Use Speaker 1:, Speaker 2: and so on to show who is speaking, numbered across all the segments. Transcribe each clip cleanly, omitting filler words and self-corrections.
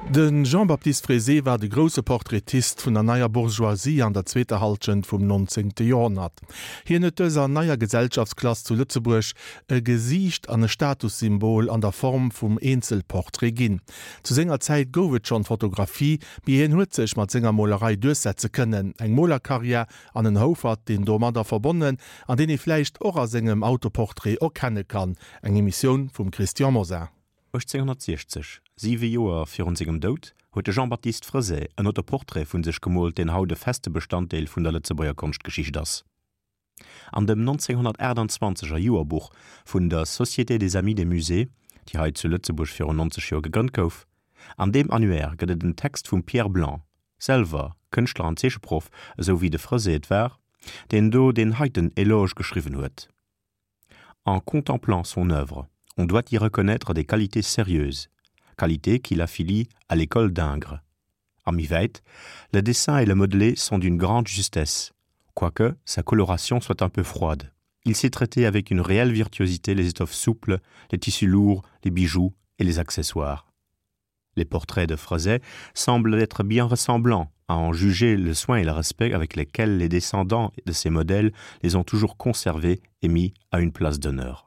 Speaker 1: De Jean-Baptiste Frézé war de grousse Portraitist vun der neier Bourgeoisie an der zweeter Hallschent vum 19. Joerhonnert. Hien huet dëser neier Gesellschaftsklass zu Lëtzebuerg e Gesiicht an e Statussymbol an der Form vum Eenzelportrait ginn. Zu senger Zäit gouf et schonn d'Fotografie, mee hien huet sech mat senger Molerei duerchsetze kënnen. Eng Molerkarriär an en Houfert, deen domadder verbonnen an deen ee vläicht och a sengem Autoportrait erkenne kann. Eng Emissioun vum Christian Mosar.
Speaker 2: 1860, siwe Joer virun sengem Doud, huet de Jean-Baptiste Frezet en Autoportrait vun sech gemoolt, deen haut e feste Bestanddeel vun der Lëtzebuerger Konschtgeschicht ass. An dem 1928 er Joerbuch vun der Société des Amis des Musées, déi hei zu Lëtzebuerg virun 90 Joer gegrënnt gouf, an deem Annuaire gëtt et en Text vum Pierre Blanc, selwer Kënschtler an Zeecheproff, esou wéi de Frezet et war, deen do deen heiten Eloge geschriwwen huet. En contemplant son œuvre, on doit y reconnaître des qualités sérieuses, qualités qui l'affilient à l'école d'Ingres. A méi wäit, le dessin et le modelé sont d'une grande justesse, quoique sa coloration soit un peu froide. Il sait traiter avec une réelle virtuosité les étoffes souples, les tissus lourds, les bijoux et les accessoires. Les portraits de Frezet semblent être bien ressemblants, à en juger le soin et le respect avec lesquels les descendants de ces modèles les ont toujours conservés et mis à une place d'honneur.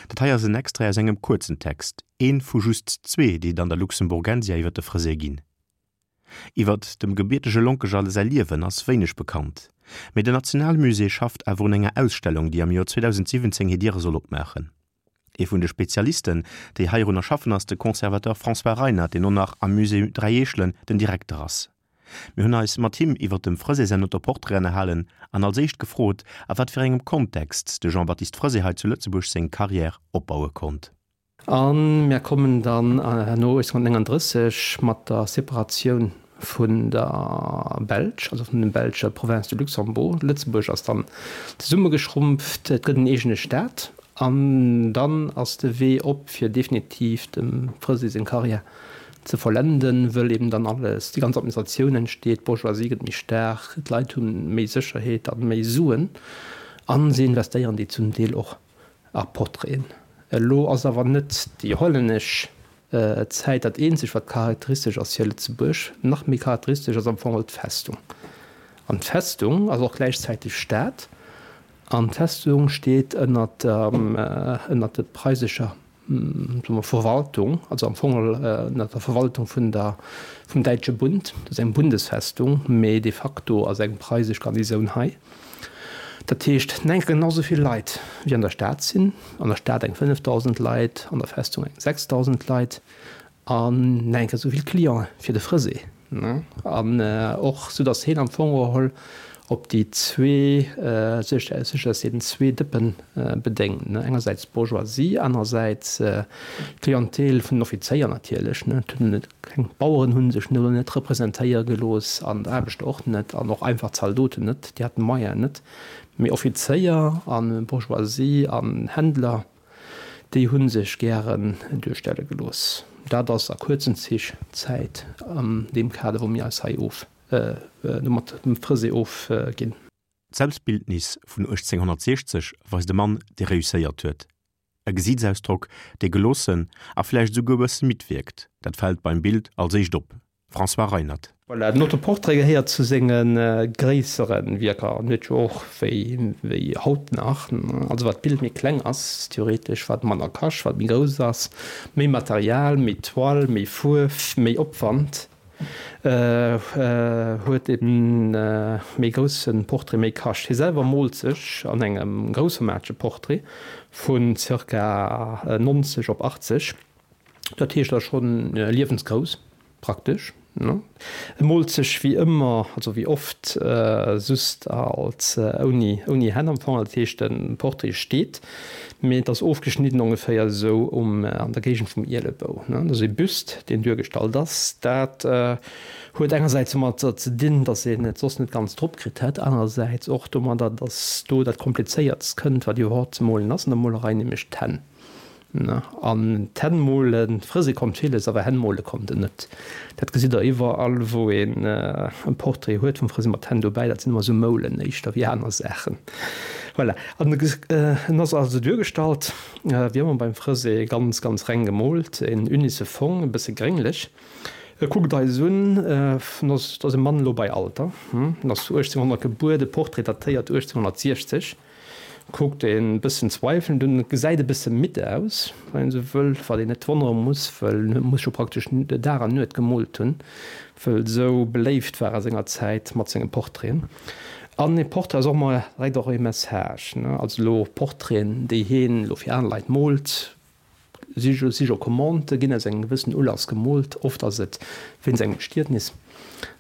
Speaker 2: Dat hei ass en Extrait aus engem kuerzen Text, een vu just zwee, déi et an der Luxemburgensia iwwer de Frezet ginn. Iwwer dem gebiertege Lonkeger säi Liewen ass wéineg bekannt, mee den Nationalmusée schafft awer un enger Ausstellung, déi am Joer 2017 hir Diere soll opmaachen. Ee vun de Spezialisten, déi heirunner schaffen, ass de Conservateur François Reinert, deen och nach am Musée Dräi Eechelen den Direkter ass. Mir hunn eis mat him iwwer dem Frezet säin Autoportrait ënnerhalen an als éischt gefrot, a wat fir engem Kontext de Jean-Baptiste Frezet hei zu Lëtzebuerg seng Carrière opbaue konnt.
Speaker 3: A mir kommen dann herno 1839 mat der Separatioun vun der Belsch, also vun dem belsche Province de Luxembourg. Lëtzebuerg ass dann zesummegeschrumpft, et gëtt en eegene Staat an dann ass de Wee op fir definitiv dem Frezet seng Karriär ze vollenden, wëll eben dann alles, déi ganz Administratioun entsteet, d'Bourgeoisie gëtt méi staark, d'Leit hu méi Sécherheet a méi Suen a se investéieren déi zum Deel och a Portraiten. Elo ass awer net déi hollännesch Zäit dat eenzegt wat charakteristesch ass fir Lëtzebuerg. Nach méi charakteristesch ass am Fong och d'Festung. An d'Festung ass och gläichzäiteg Stad. An d'Festung steet ënnert der ënnert der preisescher soe mer Verwaltung, also am Fong ënnert der Verwaltung vun der vum Däitsche Bund. Dat ass eng Bundesfestung, mee de facto ass eng preisesch Garnisoun hei. Dat heescht, en enke genau esou vill Leit wéi an der Stad sinn, an der Stad eng 5.000 Leit, an der Festung eng 6.000 Leit an en enke esou vill Cliente fir de Frësee. An och sou datt heen am Fong geholl op déi zwee, sech sech aus deenen zwee Dëppen bedéngt, engersäits d'Bourgeoisie, anerersäits d'Clientèle vun den Offizéier natierlech. Keng Baueren hu sech no net representéiere gelooss an d'Aarbechter och net an och einfach Zaldoten net, déi haten d'Moyenen net. Mee Offizéier a Bourgeoisie an Händler, déi hu sech gären duerstelle gelooss. Dat ass a kuerzen Zich d'Zäit an deem Kader, wou mir eis hei of mat dem Frësee ofginn.
Speaker 2: D'Selbstbildnis vun 1860 weist e Mann, dee reusséiert huet. E Gesiitsausdrock, dee geloossen a vläicht esouguer e bësse midd wierkt, dat fält beim Bild als éischt op. François Reinert.
Speaker 3: Voilà, den Autoportrait gehéiert zu senge gréissere Wierker an huet jo och, wéi wéi haut nach, also wat d'Bild méi kleng ass, theoretesch, wat manner kascht, wat méi grouss ass, méi Material, méi Toile, méi Fuerf, méi Opwand. Huet e méi grousse Portrait méi kascht. Hie selwer moolt sech an engem groussformatege Portrait vun zirka 90 op 80, dat heescht da schonn liewensgrouss praktesch. E moolt sech wéi ëmmer, also wéi oft, just als ouni ouni Hänn am Fong, dat heescht de Portrait steet, mee et ass ofgeschnidden ongeféier esou um an der Géigend vum Ielebou. Dat ass e Büst, deen duergestallt ass. Dat huet engersäits domatter ze dinn, datt een et soss net ganz drop kritt hätt, anerersäits och domadder, datt do dat Komplizéiertst kënnt, wat iwwerhaupt ze molen ass an der Molerei, nämlech d'Hänn. An d'Hänn molen, frëse konnt villes, awer Hänn mole konnt en net. Dat gesitt der iwwerall, wou een e Portrait huet vum Frëse mat Hänn dobäi, dat sinn ëmmer esou Moulen éischter wéi aner Saachen. Voilà. An en ass also duergestallt, wéi ëmmer beim Frësé, ganz, ganz reng gemoolt, en unisse Fong, e bësse grénglech. E kuckt eis un, en ass, et ass e Mann elo bei Alter, en ass 1800 gebuer, de Portrait datéiert 1860. Kuckt een bëssen zweifelnd un, et gesäit e bësse midd aus, wann een esou wëll, wat een net wonnere muss, wëll en muss jo praktesch Dag an Nuet gemoolt hunn, wëll esou beléift war a senger Zäit mat senge Portraiten. An ee Portrait ass och ëmmer direkt och ee Message, ne, also elo Portraiten, déi heen elo fir aner Leit moolt, Si si jo Commandë ginn aus engem gewëssenen Ulass gemoolt. Oft ass et wéinst engem Bestietnis,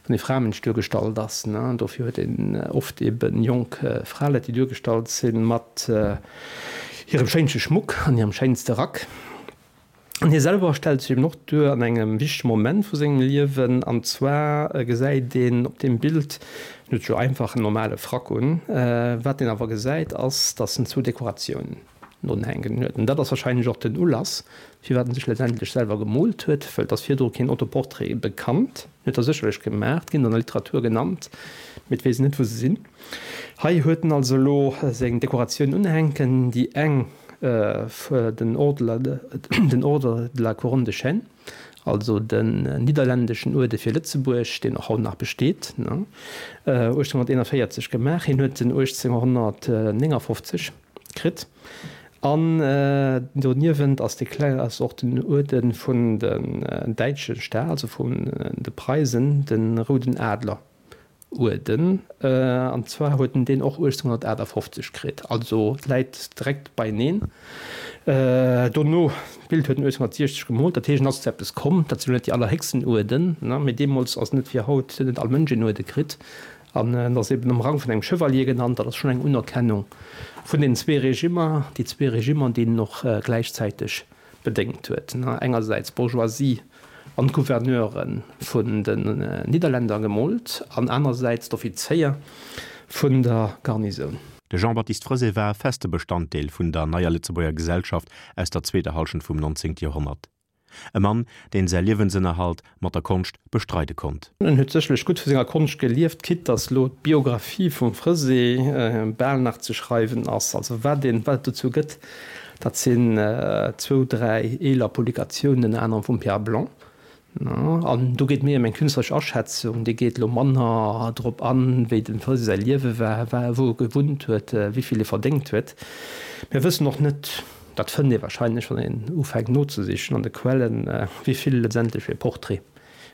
Speaker 3: wann ee Framënsch duergestallt ass. Dofir huet een oft ebe jonk Fraleit, déi duergestallt sinn mat hirem schéinsche Schmuck an hirem schéinste Rack. An hie selwer stellt sech eben och duer an engem wichtege Moment vu sengem Liewen. An zwar gesäit een op deem Bild, en huet jo einfach en normale Frack un, wat een awer gesäit ass, datt en zwou Dekoratiounen Unhänken huet. An dat ass wahrscheinlech och den Ulass, firwat en sech letztendlech selwer gemoolt huet, wëll et ass virdru keen Autoportrait bekannt. En huet der sécherlech gemaach, ginn an der Literatur genannt, mee et weess een net, wou se sinn. Hei huet en also elo seng Dekoratioun unhänken, déi eng, den Ordre, den Ordre de la Couronne de Chêne, also den nidderländeschen Uerde fir Lëtzebuerg, deen och haut nach besteet, 1841 gemaach. Hien huet en 1859 kritt. An doniewent ass dee kleng, ass och den Uerde vun den däitsche Staat, also vun de Preisen, de Rouden Adler Uerden. An zwar huet en deen och 1858 kritt, also et läit direkt beieneen. Dono, d'Bild huet en 1860 gemoolt, dat heescht en ass zu eppes komm. Dat sinn elo net déi allerhéchsten Uerden, mee deemools ass net wéi haut, huet net all Mënsch een Uerde kritt. An en ass eben am Rang vun engem Chevalier genannt. Dat ass schonn eng Unerkennung vun den zwee Regimmer, déi zwee Regimmer, déi en och gläichzäiteg bedéngt huet, engersäits d'Bourgeoisie an d'Gouverneure vun den Nidderländer gemoolt an anersäits d'Offizéier vun der Garnisoun.
Speaker 2: De Jean-Baptiste Frezé war e feste Bestanddeel vun der neier Lëtzebuerger Gesellschaft aus der zweeter Hallschent vum 19. Joerhonnert. E Mann, deen säi Liewensënnerhalt mat der Konscht bestreide konnt.
Speaker 3: En huet sécherlech gutt vu senger Konscht gelieft, quitte dass elo d'Biographie vum Frezé bal nach ze schreiwen ass. Also wat een, wat et dozou gëtt, dat sinn zwou, dräi eeler Publikatiounen, ënner anerem vum Pierre Blanc. An do geet méi ëm eng künstleresch Aschätzung, déi geet elo manner drop an, wéi dem Frezé säi Liewe war, wou e gewunnt huet, wéi vill e verdéngt huet. Mir wëssen och net, Dat fënnt ee wahrscheinlech, wann een ufänkt nozesichen an de Quellen, wéi vill letztendlech fir e Portrait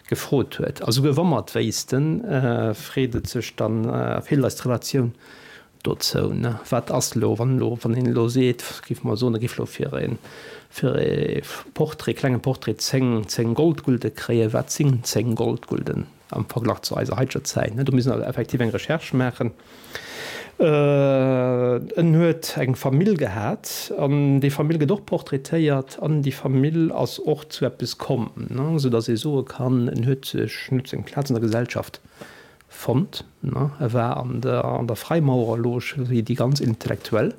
Speaker 3: gefrot huet. A souguer wa mer et wéissten, freet et sech dann, feelt eis d'Relatioun dozou. Wat ass elo, wann elo, wann een elo seet, géife mer soen, e géif elo fir e, fir e Portrait, klenge Portrait 10, 10 Goldgulde kréien, wat sinn 10 Goldgulden? Am Verglach zu eiser haiteger Zäit, do misst een effektiv eng Recherche maachen. En huet eng Famill gehat an déi Famill gëtt och portraitéiert an déi Famill ass och zu eppes komm, esou datt ee soe kann, en huet sech, en huet seng Plaz an der Gesellschaft fonnt. E war an der an der Freimaurerloge wéi déi ganz Intellektuell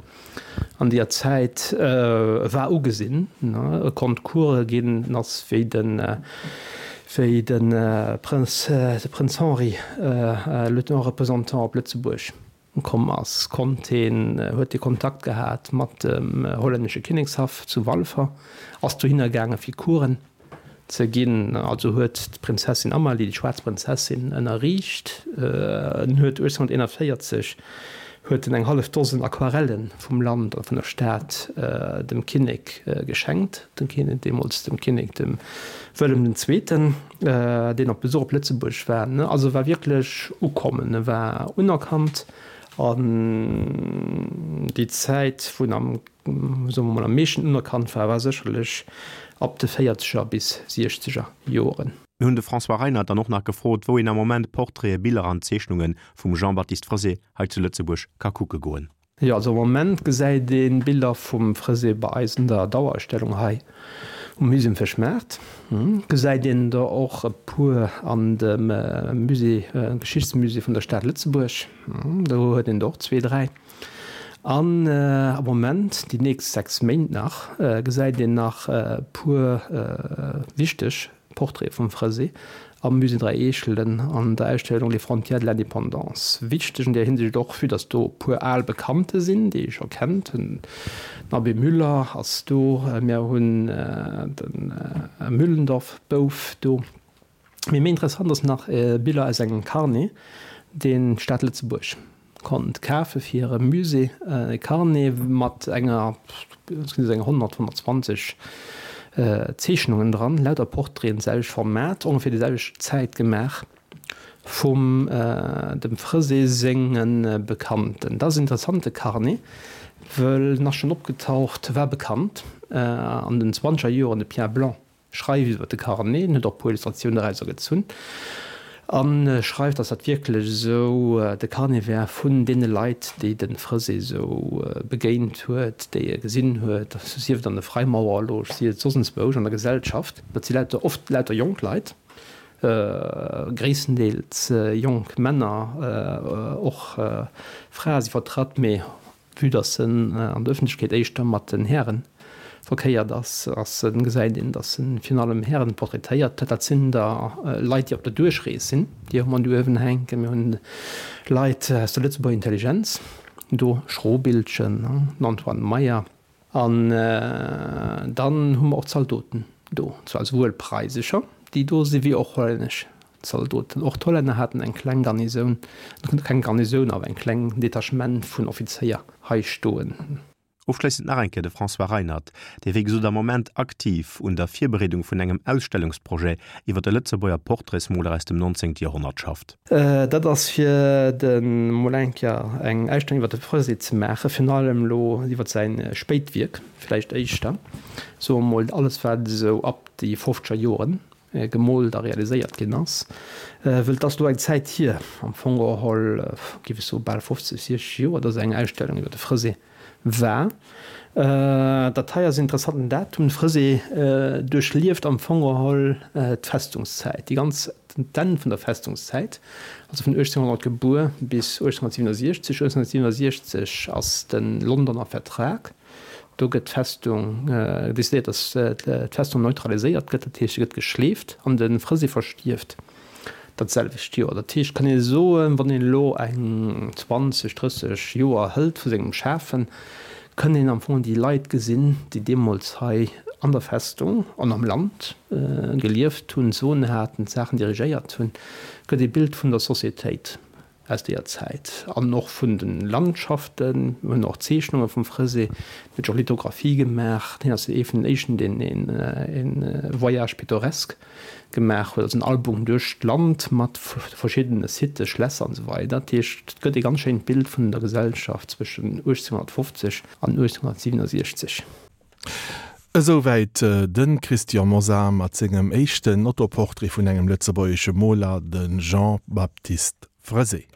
Speaker 3: an deeër Zäit. E war ugesinn, e konnt Course ginn, en ass wéi de wéi de Prënz de Prënz Henri, Lieutenant représentant op Lëtzebuerg komm ass, konnt hien, huet hie Kontakt gehat mat dem hollännesche Kinnekshaff zu Walfer, ass dohinner gaange fir Coursen ze ginn. Also huet d'Prinzessin Amalie, déi schwaarz Prinzessin, ënnerriicht. En huet 1841 huet en eng hallef Dosen Aquarelle vum Land a vun der Stad dem Kinnek geschenkt, dem Kinnek, deemools dem Kinnek dem Wëllem den Zweeten, deen op Besuch op Lëtzebuerg war. Also e war wierklech ukommen, e war unerkannt an déi Zäit, wou en am soe mer mol, am meeschten unerkannt war, war sécherlech ab de véierzeger bis siechzeger Joren.
Speaker 2: Mir hunn de François Reinert dann och nach gefrot, wou een am Moment Portraiten, Biller an Zeechnunge vum Jean-Baptiste Frezé hei zu Lëtzebuerg ka kucke goen.
Speaker 3: Jo, also am Moment gesäit ee Biller vum Frezé bei eis an der Dauerausstellung hei um Musée um Fëschmaart. Gesäit een der och e puer an dem Musée, Geschichtsmusée vun der Stad Lëtzebuerg. Do huet een der och zwee, dräi. An am Moment, déi nächst 6 Méint nach, gesäit een nach e puer wichteg. Portraite vum Fresé am Musée Dräi Eechelen an der Ausstellung Les frontières de l'indépendance. Wichteg an där Hinsicht och, vue dass do e puer al Bekannte sinn, déi ee scho kennt. Den Abbé Müller ass do, mir hunn de Müllendorf-Bouf do. Mee méi interessant ass nach Biller aus engem Carnet, deen d'Stad Lëtzebuerg konnt kafe fir hire Musée. E Carnet mat enger, et sinn esou eng 100, 120 Zeechnungen dran, lauter Portraiten, d'selwecht Format, ongeféier déi selwecht Zäit gemaach vum dem Fresé senge Bekannten. Dat ass en interessante Carnet, wëll en ass schonn opgetaucht, war bekannt an den zwanzeger Joren, de Pierre Blanc Schreift iwwer de Carnet, en huet och e puer Illustratiounen dorauser gezunn a schreift, datt dat wierklech esou de Carnet wär vun deene Leit, déi de Fresé esou begéint huet, déi e gesinn huet, sief et an der Freimaurerloge, sief et soss enzwousch an der Gesellschaft. Dat si lauter, oft lauter jonk Leit, gréisstendeels jonk Männer, och Frae si vertratt, mee Vue dass en an der Ëffentlechkeet éischter mat den Hären verkéiert ass, ass en, gesäit een, dass en virun allem Hären portraitéiert. Dat sinn da Leit, déi op der Duerchrees sinn, déi hu mer do uewen hänken. Mir hunn Leit aus der Lëtzebuerger Intelligenz do, Schrobiltgen, den Antoine Meyer. An dann hu mer och Zaldoten do, zwar esouwuel preisescher, déi do sinn, wéi och hollännesch Zaldoten. Och d'Hollänner haten eng kleng Garnisoun, keng Garnisoun, awer eng kleng Detachement vun Offizéier hei stoen.
Speaker 2: Ofschléissend nach eng Kéier de François Reinert, dee wéi gesot am Moment aktiv un der Virbereedung vun engem Ausstellungsprojet iwwer de Lëtzebuerger Portraitsmoler aus dem 19. Joerhonnert schafft.
Speaker 3: Dat ass fir de mol eng Kéier eng Ausstellung iwwer de Fresé ze maachen, virun allem elo iwwer säi spéit Wierk vläicht éischter, soe mol alles wat esou ab déi fofzeger Joren gemoolt a realiséiert ginn ass, wëll et ass elo eng Zäit hier, am Fong geholl géif ech soe bal 50, 60 Joer, dass eng Ausstellung iwwer de Fresé war. Dat hei ass en interessanten Datum. De Fresé duerchlieft am Fong geholl d'Festungszäit, déi ganz, d'Enn vun der Festungszäit, also vun 1800 gebuer bis 1867. 1867 ass de Londoner Vertrag. Do gëtt d'Festung decidéiert, datt d'Festung neutraliséiert gëtt, dat heescht, se gëtt geschleeft an de Fresé verstierft dat selwecht Joer. Dat heescht, kann ee soen, wann een elo eng 20, 30 Joer hëlt vu sengem Schafen, kënn een am Fong déi Leit gesinn, déi deemools hei an der Festung an am Land gelieft hunn, d'Soen haten, d'Saachen dirigéiert hunn, gëtt ee Bild vun der Societéit. Aus deeër Zäit an och vun de Landschaften. Mir hunn och Zeechnunge vum Fresé, hien huet och Lithographie gemaach. Hien ass ee vun den éischten, deen e Voyage pittoresque gemaach huet, also en Album duerch d'Land mat verschiddene Sitë, Schlässer an esou weider. Dat heescht, et gëtt ee ganz schéint Bild vun der Gesellschaft zwëschen 1850 an 1867.
Speaker 1: Esouwäit de Christian Mosar mat sengem éischten Autoportrait vun engem lëtzebuergesche Moler, de Jean-Baptiste Fresé.